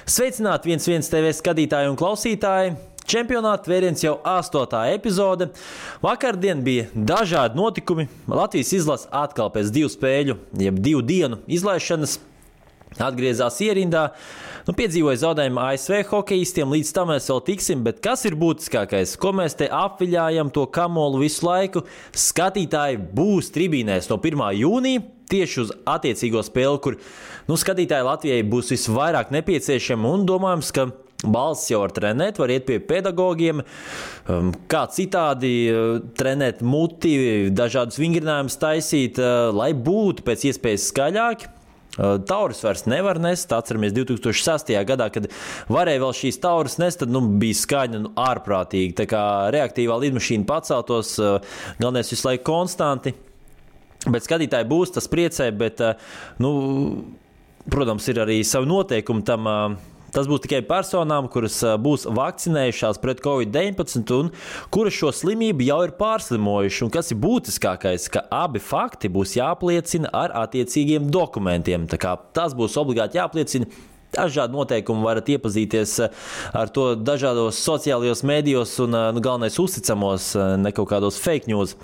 Sveicināti 1-1 TV skatītāji un klausītāji! Čempionāta vēriens jau 8. epizode. Vakardien bija dažādi notikumi. Latvijas izlase atkal pēc 2 spēļu, jeb 2 dienu izlaišanas atgriezās ierindā. Piedzīvoja zaudējumu ASV hokejistiem, līdz tam mēs vēl tiksim, bet kas ir būtiskākais? Ko mēs te apviļājam to kamolu visu laiku? Skatītāji būs tribīnēs no 1. jūnija. Tieši uz attiecīgo spēli, kur skatītāji Latvijai būs visvairāk nepieciešami un domājams, ka balss jau var trenēt, var iet pie pedagogiem, kā citādi trenēt muti, dažādus vingrinājumus taisīt, lai būtu pēc iespējas skaļāki. Taurus vairs nevar nest, atceramies 2006. gadā, kad varēja vēl šīs taurus nest, tad bija skaņa ārprātīgi, tā kā reaktīvā lidmašīna paceltos, galvenais visu laiku konstanti. Bet skatītāji būs, tas priecē, bet, protams, ir arī savi noteikumi tam. Tas būs tikai personām, kuras būs vakcinējušās pret Covid-19 un kuras šo slimību jau ir pārslimojuši. Un kas ir būtiskākais, ka abi fakti būs jāapliecina ar attiecīgiem dokumentiem. Tā kā tas būs obligāti jāapliecina. Dažādi noteikumi varat iepazīties ar to dažādos sociālajos mēdījos un galvenais uzticamos, ne kaut kādos fake news.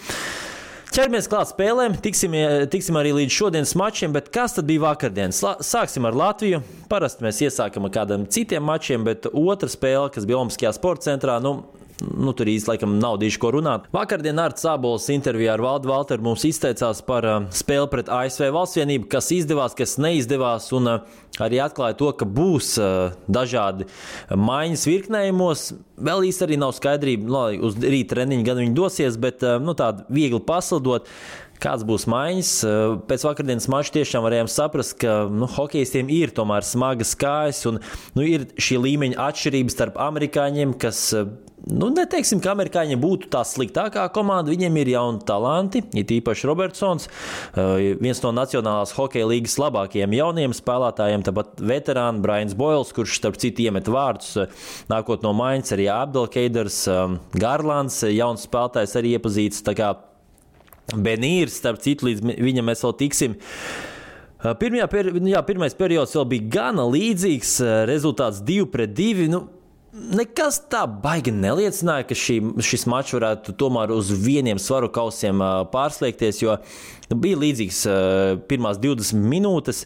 Ķeramies klāt spēlēm, tiksim arī līdz šodienas mačiem, bet kas tad bija vakardien? Sāksim ar Latviju. Parasti mēs iesākam ar kādiem citiem mačiem, bet otra spēle, kas bija Olimpiskajā sporta centrā, tur īsti laikam nav diši ko runāt. Vakardien Arts Ābols intervijā ar Valdu Valteru mums izteicās par spēli pret ASV Valstsvienību, kas izdevās, kas neizdevās, un arī atklāja to, ka būs dažādi maiņas virknējumos. Vēl īsti arī nav skaidrība, lai uz rīta treniņu gan viņi dosies, bet tādu viegli paslidot. Kāds būs maiņas? Pēc vakardienas mača tiešām varējām saprast, ka hokejistiem ir tomēr smagas kājas un ir šī līmeņa atšķirības starp amerikāņiem, kas, neteiksim, ka amerikāņi būtu tā sliktākā komanda, viņiem ir jauni talanti, it īpaši Robertsons, viens no Nacionālās hokeja līgas labākajiem jauniem spēlētājiem, tāpat veterāni Brians Boyles, kurš starp citu iemet vārdus, nākot no maiņas, arī Abdelkeiders, Garlands, jauns spēlētājs arī iepazīts, tā kā Benīrs, starp citu, līdz viņam mēs vēl tiksim. Pirmais periods vēl bija gana līdzīgs, rezultāts 2-2. Nekas tā baigi neliecināja, ka šis mačs varētu tomēr uz vieniem svaru kausiem pārslēgties, jo bija līdzīgs pirmās 20 minūtes.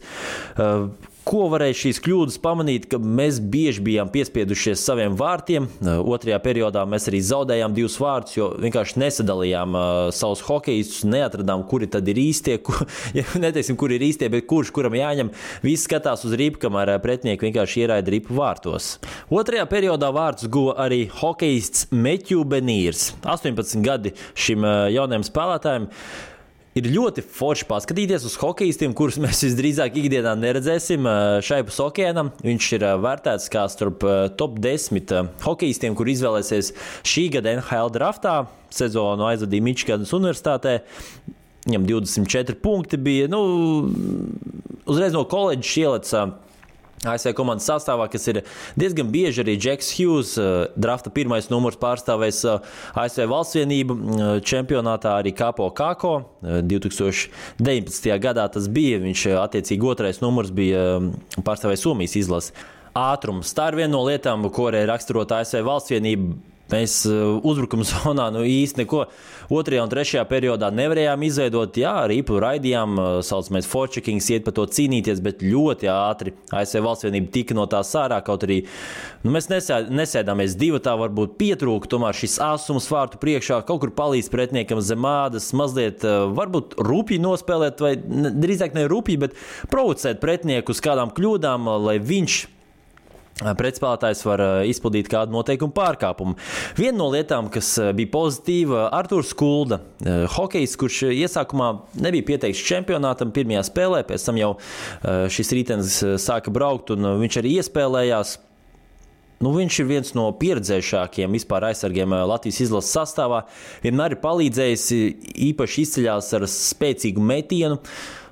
Ko varēja šīs kļūdas pamanīt, ka mēs bieži bijām piespiedušies saviem vārtiem. Otrajā periodā mēs arī zaudējām 2 vārtus, jo vienkārši nesadalījām savus hokejistus, neatradām, kuri tad ir īstie, neteiksim, kuri ir īstie, bet kurš kuram jāņem. Visi skatās uz ripu, kamēr pretinieki vienkārši ieraida ripu vārtos. Otrajā periodā vārtus guva arī hokejists Matthew Benīrs. 18 gadi šim jaunajam spēlētājiem. Ir ļoti forši paskatīties uz hokejistiem, kurus mēs visdrīzāk ikdienā neredzēsim šaipus okeānam. Viņš ir vērtēts kā starp top 10 hokejistiem, kur izvēlēsies šī gada NHL draftā. Sezonu aizvadīja Mičiganas universitātē. Viņam 24 punkti bija. Uzreiz no koledžas ielec ASV komandas sastāvā, kas ir diezgan bieži arī Džeks Hughes, drafta 1. numurs pārstāvēs ASV Valstsvienību čempionātā, arī Kapo Kako. 2019. gadā tas bija, viņš attiecīgi 2. numurs bija pārstāvējis Somijas izlasi. Ātrums. Tā ir viena no lietām, ko arī raksturot ASV Valstsvienību. Mēs uzbrukuma zonā īsti neko 2. un 3. periodā nevarējām izveidot. Jā, ripu raidījām, saucamais forechecking, iet par to cīnīties, bet ļoti ātri ASV Valstsvienība tika no tā sārā, kaut arī mēs nesēdāmies 2, varbūt pietrūka, tomēr šis āsums vārtu priekšā kaut kur palīdz pretiniekam zem ādas, mazliet varbūt rupji nospēlēt, vai drīzāk ne rupji, bet provocēt pretinieku uz kādām kļūdām, lai viņš pretspēlētājs var izpildīt kādu noteikumu pārkāpumu. Viena no lietām, kas bija pozitīva, Arturs Kulda, hokejs, kurš iesākumā nebija pieteikts čempionātam pirmajā spēlē, pēc tam jau šis ritenis sāka braukt un viņš arī iespēlējās. Viņš ir viens no pieredzējušākiem vispār aizsargiem Latvijas izlases sastāvā. Vienmēr ir palīdzējis, īpaši izceļās ar spēcīgu metienu.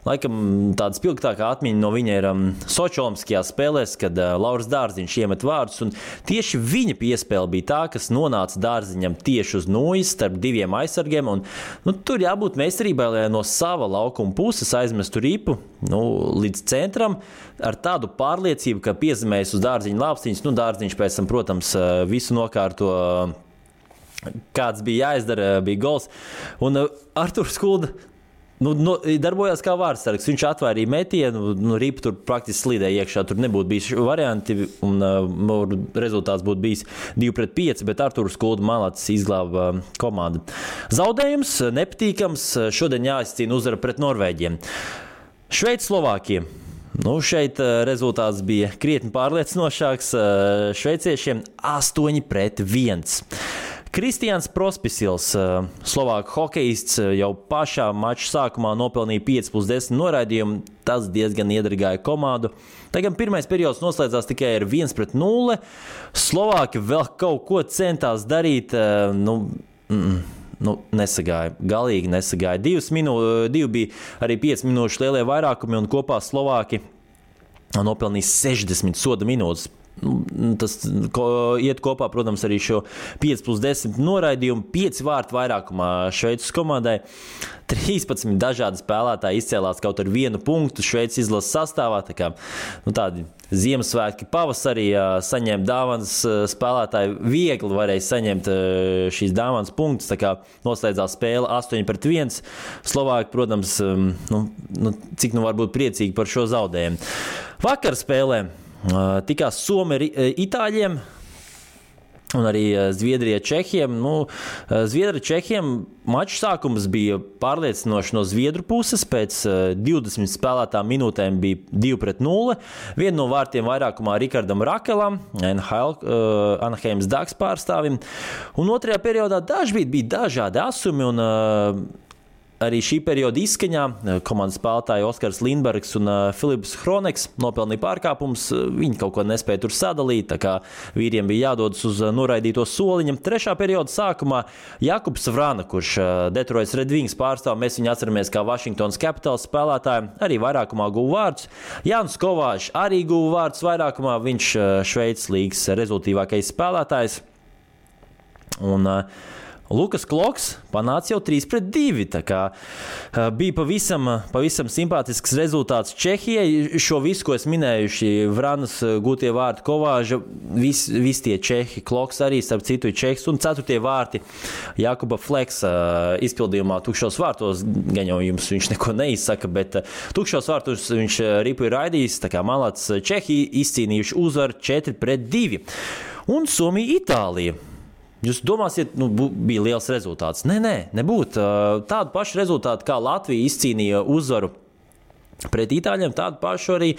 Laikam tāda spilgtākā atmiņa no viņa ir Soči olimpiskajās spēlēs, kad Lauris Dārziņš iemet vārdus, un tieši viņa piespēle bija tā, kas nonāca Dārziņam tieši uz nojas starp diviem aizsargiem, un tur jābūt meistarībai, lai no sava laukuma puses aizmestu ripu līdz centram ar tādu pārliecību, ka piezemējas uz Dārziņa lāpstiņas, Dārziņš pēc tam, protams, visu nokārto, kāds bija jāizdara, bija gols, un Arturs Skulda darbojās kā vārdsargs. Viņš atvērīja metienu, ripa tur praktiski slīdēja iekšā. Tur nebūtu bijis varianti, un rezultāts būtu bijis 2-5, bet Arturs Skulda malacis izglāba komandu. Zaudējums nepatīkams. Šodien jāizcīna uzvara pret Norvēģiem. Šveice, Slovākija. Šeit rezultāts bija krietni pārliecinošāks. Šveiciešiem 8-1. Kristians Prospisils, Slovāku hokejists, jau pašā mača sākumā nopelnīja 5+10 noraidījumu. Tas diezgan iedragāja komandu. Tagad pirmais periods noslēdzās tikai ar 1-0. Slovāki vēl kaut ko centās darīt. Nesagāja. Galīgi nesagāja. 2 bija arī 5 minūšu lielie vairākumi, un kopā Slovāki nopelnīja 60 soda minūtes. Tas iet kopā, protams, arī šo 5+10 noraidījumu, 5 vārtu vairākumā Šveices komandai. 13 dažādi spēlētāji izcēlās kaut ar 1 punktu Šveices izlases sastāvā. Tā kā, tādi Ziemassvētki pavasarī saņēma dāvanas spēlētāji, viegli varēja saņemt šīs dāvanas punktus. Tā kā noslēdzās spēle 8-1. Slovāki, protams, cik var būt priecīgi par šo zaudējumu. Vakar spēlē tikās Somi ar Itāļiem un arī Zviedrija Čehiem. Zviedri Čehiem maču sākums bija pārliecinoši no Zviedru puses. Pēc 20 spēlētām minūtēm bija 2-0. Vienu no vārtiem vairākumā Rikardam Rakelam, Anaheimas Ducks pārstāvim. Un otrajā periodā dažkārt bija dažādi asumi, un arī šī perioda izskaņā komandas spēlētāji Oskars Lindbergs un Filips Hroneks nopelnīja pārkāpumus. Viņi kaut ko nespēja tur sadalīt, tā kā vīriem bija jādodas uz noraidīto soliņam. Trešā perioda sākumā Jakubs Vrana, kurš Detroits Red Wings pārstāv, mēs viņu atceramies kā Washingtonas Capitals spēlētāju, arī vairākumā guva vārdus. Jānis Kovāšs arī guva vārdus vairākumā, viņš Šveices līgas rezultīvākais spēlētājs. Un Lukas Kloks panāca jau 3-2. Tā kā bija pavisam simpātisks rezultāts Čehijai. Šo visu, ko es minēju, Vranas gūtie vārti, Kovāža, visi tie Čehi, Kloks arī, starp citu, Čehs, un 4. vārti Jakuba Fleksa izpildījumā tukšos vārtos. Gan jau jums viņš neko neizsaka, bet tukšos vārtos viņš ripu ir raidījis. Tā kā malāts Čehi izcīnījuši uzvaru 4-2. Un Somija, Itālija. Jūs domāsiet, bija liels rezultāts. Nē, nebūtu. Tādu pašu rezultātu, kā Latvija izcīnīja uzvaru pret Itāļiem, tādu pašu arī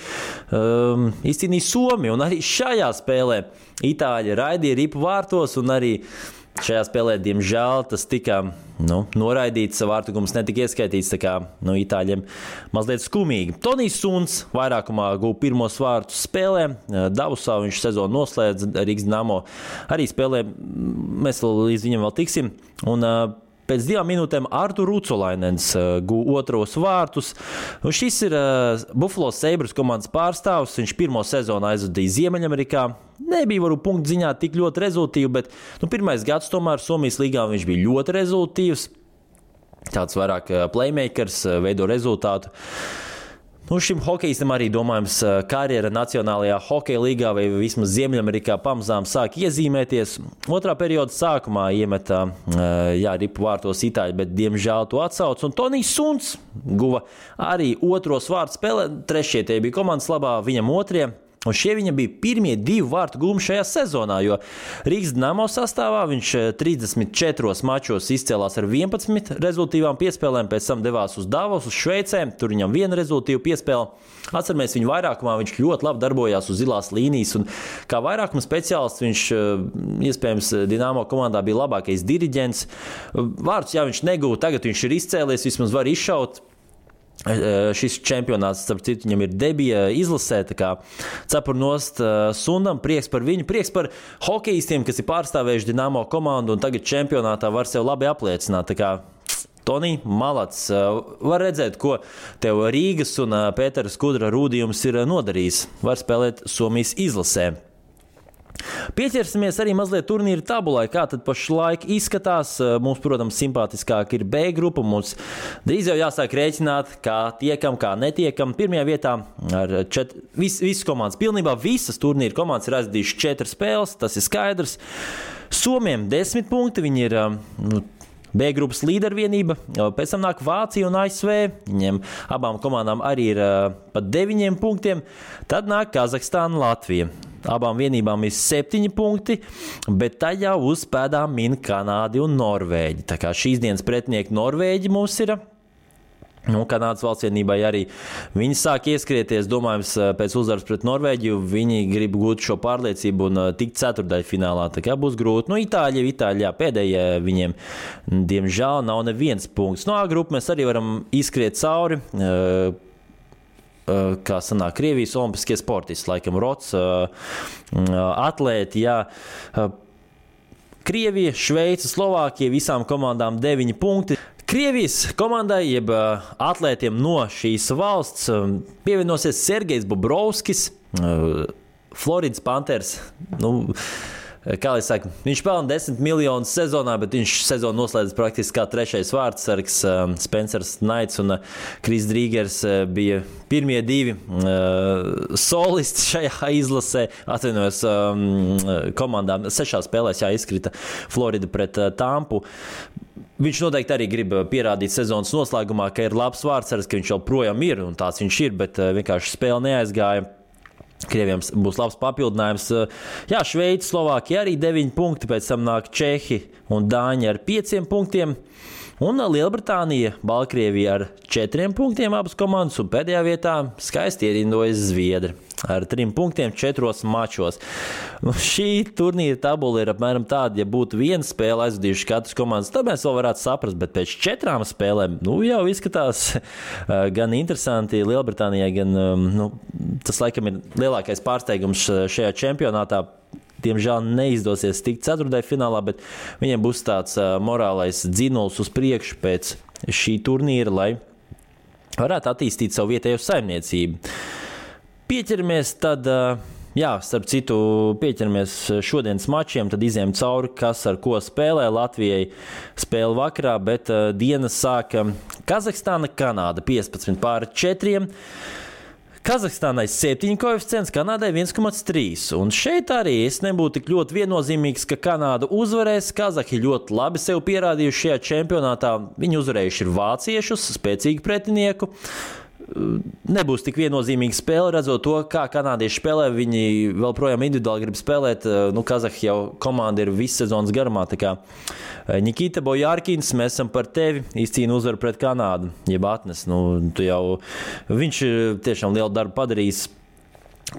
izcīnīja Somija. Un arī šajā spēlē Itāļi raidīja ripu vārtos, un arī šajā spēlē, diemžēl, tas tika noraidīts, vārtugums netika ieskaitīts, tā kā Itāļiem mazliet skumīgi. Tonijs Suns vairākumā guva pirmos vārtus spēlē. Davusā viņš sezonu noslēdz, Rīgas Dinamo arī spēlē. Mēs līdz viņam vēl tiksim. Un pēc 2 minūtēm Artur Rucolainens guva otros vārtus. Un šis ir Buffalo Sabres komandas pārstāvs. Viņš pirmo sezonu aizvadīja Ziemeļamerikā. Nebija varbūt punktu ziņā tik ļoti rezultīvi, bet pirmais gads tomēr Somijas līgā viņš bija ļoti rezultīvs. Tāds vairāk playmakers, veido rezultātu. Šim hokejistam arī, domājams, karjera Nacionālajā hokeja līgā vai vismaz Ziemeļamerikā pamazām sāk iezīmēties. Otrā perioda sākumā iemeta ripu vārtos Itāļi, bet diemžēl to atsauc. Un Tonijs Suns guva arī otros vārtus spēlē. Trešie tie bija komandas labā, viņam otrie. Un šie viņa bija pirmie 2 vārtu gūmi šajā sezonā, jo Rīgas Dinamo sastāvā viņš 34 mačos izcēlās ar 11 rezultīvām piespēlēm, pēc tam devās uz Davos, uz Šveicēm, tur viņam 1 rezultīva piespēle. Atceramies viņu vairākumā, viņš ļoti labi darbojās uz zilās līnijas, un kā vairākuma speciālists viņš, iespējams, Dinamo komandā bija labākais diriģents. Vārdus, viņš negūva, tagad viņš ir izcēlies, vismaz var izšaut. Šis čempionāts, starp citu, viņam ir debija izlasē, tā kā cepur nost Sundam, prieks par viņu, prieks par hokejistiem, kas ir pārstāvējuši Dinamo komandu un tagad čempionātā var sev labi apliecināt. Tā kā Tonī, malats. Var redzēt, ko tev Rīgas un Pētera Skudra rūdījums ir nodarījis. Var spēlēt Somijas izlasē. Pieķersimies arī mazliet turnīra tabulai, kā tad pašlaik izskatās. Mums, protams, simpātiskāk ir B grupa. Mums drīz jau jāsāk rēķināt, kā tiekam, kā netiekam. Pirmajā vietā ar visas komandas, pilnībā visas turnīra komandas ir aizdījušas 4 spēles, tas ir skaidrs. Somiem 10 punkti, viņi ir B grupas līdervienība, pēc tam nāk Vācija un ASV, viņiem abām komandām arī ir pat 9 punktiem, tad nāk Kazahstāna, Latvija. Abām vienībām ir 7 punkti, bet tajā uz pēdām min Kanādi un Norvēģi. Tā kā šīs dienas pretinieki Norvēģi mums ir, Kanādas valstsvienībai arī viņi sāk ieskrieties, domājams, pēc uzvaras pret Norvēģiju, viņi grib gūt šo pārliecību un tikt ceturtdaļfinālā, tā kā būs grūti. Itāļi, pēdējie viņiem, diemžēl, nav neviens punkts. A grupu mēs arī varam izskriet cauri, kā sanāk Krievijas olimpiskie sportisti, laikam Rots, atlēti, jā. Krievija, Šveica, Slovākija, visām komandām 9 punkti. Krievijas komandai, jeb atlētiem no šīs valsts, pievienosies Sergejs Bobrovskis, Floridas Panthers. Kā lai saka, viņš pelna 10 miljonus sezonā, bet viņš sezonu noslēdz praktiski kā 3. vārdsargs. Spencers Knights un Kris Drīgers bija pirmie 2 solisti šajā izlasē. Atvainojos komandām 6 spēlēs izkrita Florida pret Tampu. Viņš noteikti arī grib pierādīt sezonas noslēgumā, ka ir labs vārdsargs, ka viņš joprojām ir, un tāds viņš ir, bet vienkārši spēle neaizgāja. Krieviem būs labs papildinājums. Jā, Šveica, Slovākija arī 9 punkti, pēc tam nāk Čehi un Dāņi ar 5 punktiem. Un Lielbritānija, Baltkrievija ar 4 punktiem abas komandas, un pēdējā vietā skaisti ierindojas Zviedri ar 3 punktiem 4 mačos. Šī turnīra tabula ir apmēram tāda, ja būtu viena spēle aizvadījuši katras komandas, tad mēs vēl varētu saprast, bet pēc 4 spēlēm, jau izskatās gan interesanti Lielbritānijai, gan, tas laikam ir lielākais pārsteigums šajā čempionātā. Diemžēl neizdosies tikt ceturtdaļfinālā, bet viņiem būs tāds morālais dzinuls uz priekšu pēc šī turnīra, lai varētu attīstīt savu vietējo saimniecību. Pieķeramies tad, starp citu, pieķeramies šodienas mačiem, tad izējām cauri, kas ar ko spēlē. Latvijai spēle vakarā, bet dienas sāka Kazahstāna, Kanāda 15-4. Kazahstānai 7 koeficients, Kanādai 1,3. Un šeit arī es nebūtu tik ļoti viennozīmīgs, ka Kanāda uzvarēs. Kazahi ļoti labi sev pierādījuši šajā čempionātā. Viņi uzvarējuši ir vāciešus, spēcīgu pretinieku. Nebūs tik viennozīmīga spēle, redzot to, kā kanādieši spēlē. Viņi vēl projām individuāli grib spēlēt. Kazahi jau komanda ir visu sezonas garumā. Tā kā Nikita Bojārkins, mēs esam par tevi, izcīna uzvaru pret Kanādu. Jeb atnes, viņš tiešām lielu darbu padarījis.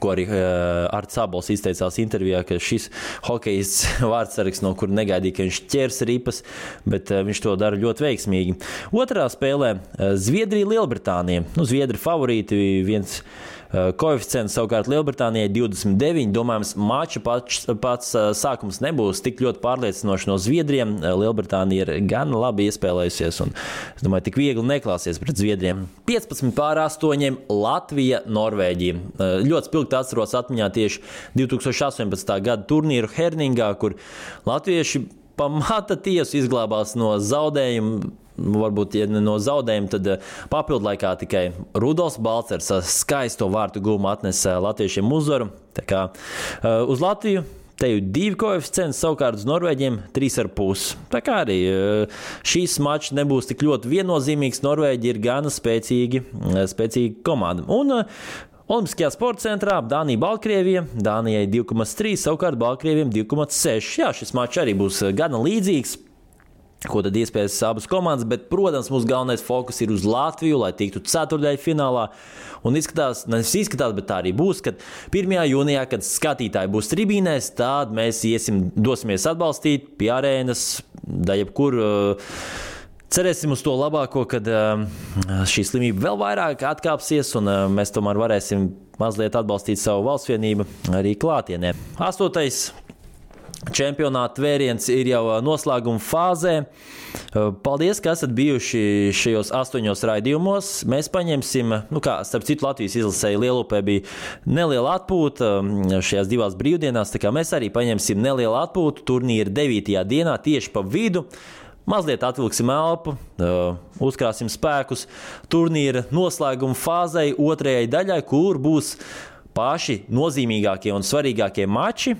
Ko arī Arts Sabols izteicās intervijā, ka šis hokejists vārdsargs, no kura negaidīja, ka viņš ķers ripas, bet viņš to dara ļoti veiksmīgi. Otrā spēlē Zviedrija, Lielbritānija. Zviedri favorīti, viens koeficients, savukārt Lielbritānijai 29. Domājams, mača pats sākums nebūs tik ļoti pārliecinoši no Zviedriem. Lielbritānija ir gan labi iespēlējusies un, es domāju, tik viegli neklāsies pret Zviedriem. 15-8 Latvija, Norvēģija. Ļoti spilgti atceros atmiņā tieši 2018. gada turnīru Herningā, kur latvieši pamata tiesu izglābās no zaudējumu. Varbūt, ja ne no zaudējuma, tad papildlaikā tikai Rudolfs Balcers skaisto vārtu gūmu atnesa latviešiem uzvaru. Tā kā uz Latviju te ir 2 koeficients, savukārt uz Norvēģiem 3,5. Tā kā arī šīs mačs nebūs tik ļoti viennozīmīgs. Norvēģi ir gana spēcīga komanda. Un Olimpiskajā sporta centrā Dānija, Baltkrievija. Dānijai 2,3, savukārt Baltkrieviem 2,6. Jā, šis mačs arī būs gana līdzīgs. Ko tad iespējas abas komandas, bet, protams, mūsu galvenais fokus ir uz Latviju, lai tiktu ceturtdaļfinālā. Un izskatās, bet tā arī būs, kad 1. jūnijā, kad skatītāji būs tribīnēs, tad mēs dosimies atbalstīt pie arēnas, da jebkur. Cerēsim uz to labāko, kad šī slimība vēl vairāk atkāpsies, un mēs tomēr varēsim mazliet atbalstīt savu valstsvienību arī klātienē. 8. čempionāta vēriens ir jau noslēguma fāzē. Paldies, ka esat bijuši šajos 8 raidījumos. Mēs paņemsim, starp citu Latvijas izlasēji Lielupē bija neliela atpūta šajās 2 brīvdienās, tā kā mēs arī paņemsim nelielu atpūtu turnīra 9. dienā tieši pa vidu. Mazliet atvilksim elpu, uzkrāsim spēkus turnīra noslēguma fāzei 2. daļai, kur būs paši nozīmīgākie un svarīgākie mači.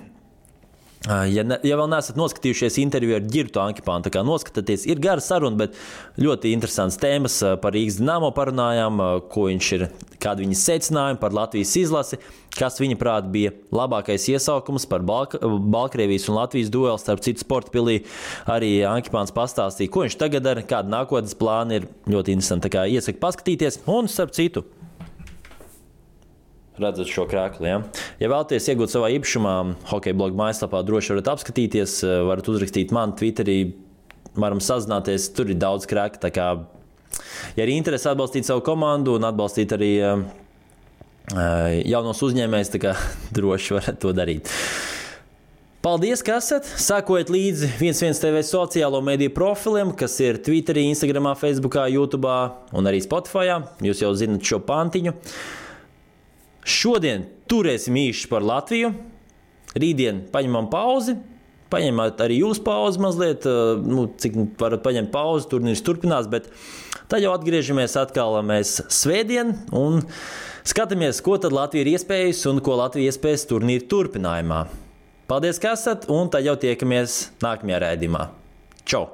Ja vēl neesat noskatījušies interviju ar Girtu Ankipānu, tā kā noskatieties, ir gara saruna, bet ļoti interesants tēmas par Rīgas Dinamo parunājām, ko viņš ir, kādi viņa secinājumi par Latvijas izlasi, kas viņa prāt bija labākais iesaukums par Baltkrievijas un Latvijas dueli, starp citu sporta pilī. Arī Ankipāns pastāstīja, ko viņš tagad dara, kāda nākotnes plāna ir ļoti interesanti. Tā kā iesaku paskatīties un starp citu. Redzat šo krēklu, ja? Ja vēlaties iegūt savā īpašumā, hokeja bloga mājaslapā droši varat apskatīties, varat uzrakstīt man Twitterī, varam sazināties, tur ir daudz krēku, tā kā, ja arī interesi atbalstīt savu komandu un atbalstīt arī jaunos uzņēmējus, tā kā droši varat to darīt. Paldies, ka esat! Sekojiet līdzi 11 TV sociālo mediju profiliem, kas ir Twitterī, Instagramā, Facebookā, YouTube'ā un arī Spotify'ā. Jūs jau zinat šo pantiņu. Šodien turēsim īši par Latviju. Rītdien paņemam pauzi. Paņemat arī jūs pauzi mazliet, cik varat paņemt pauzi, turnīrs turpinās, bet tad jau atgriežamies atkal mēs svētdien un skatāmies, ko tad Latvija ir iespējusi un ko Latvija iespējas turnīra turpinājumā. Paldies, ka esat, un tad jau tiekamies nākamajā raidījumā. Čau!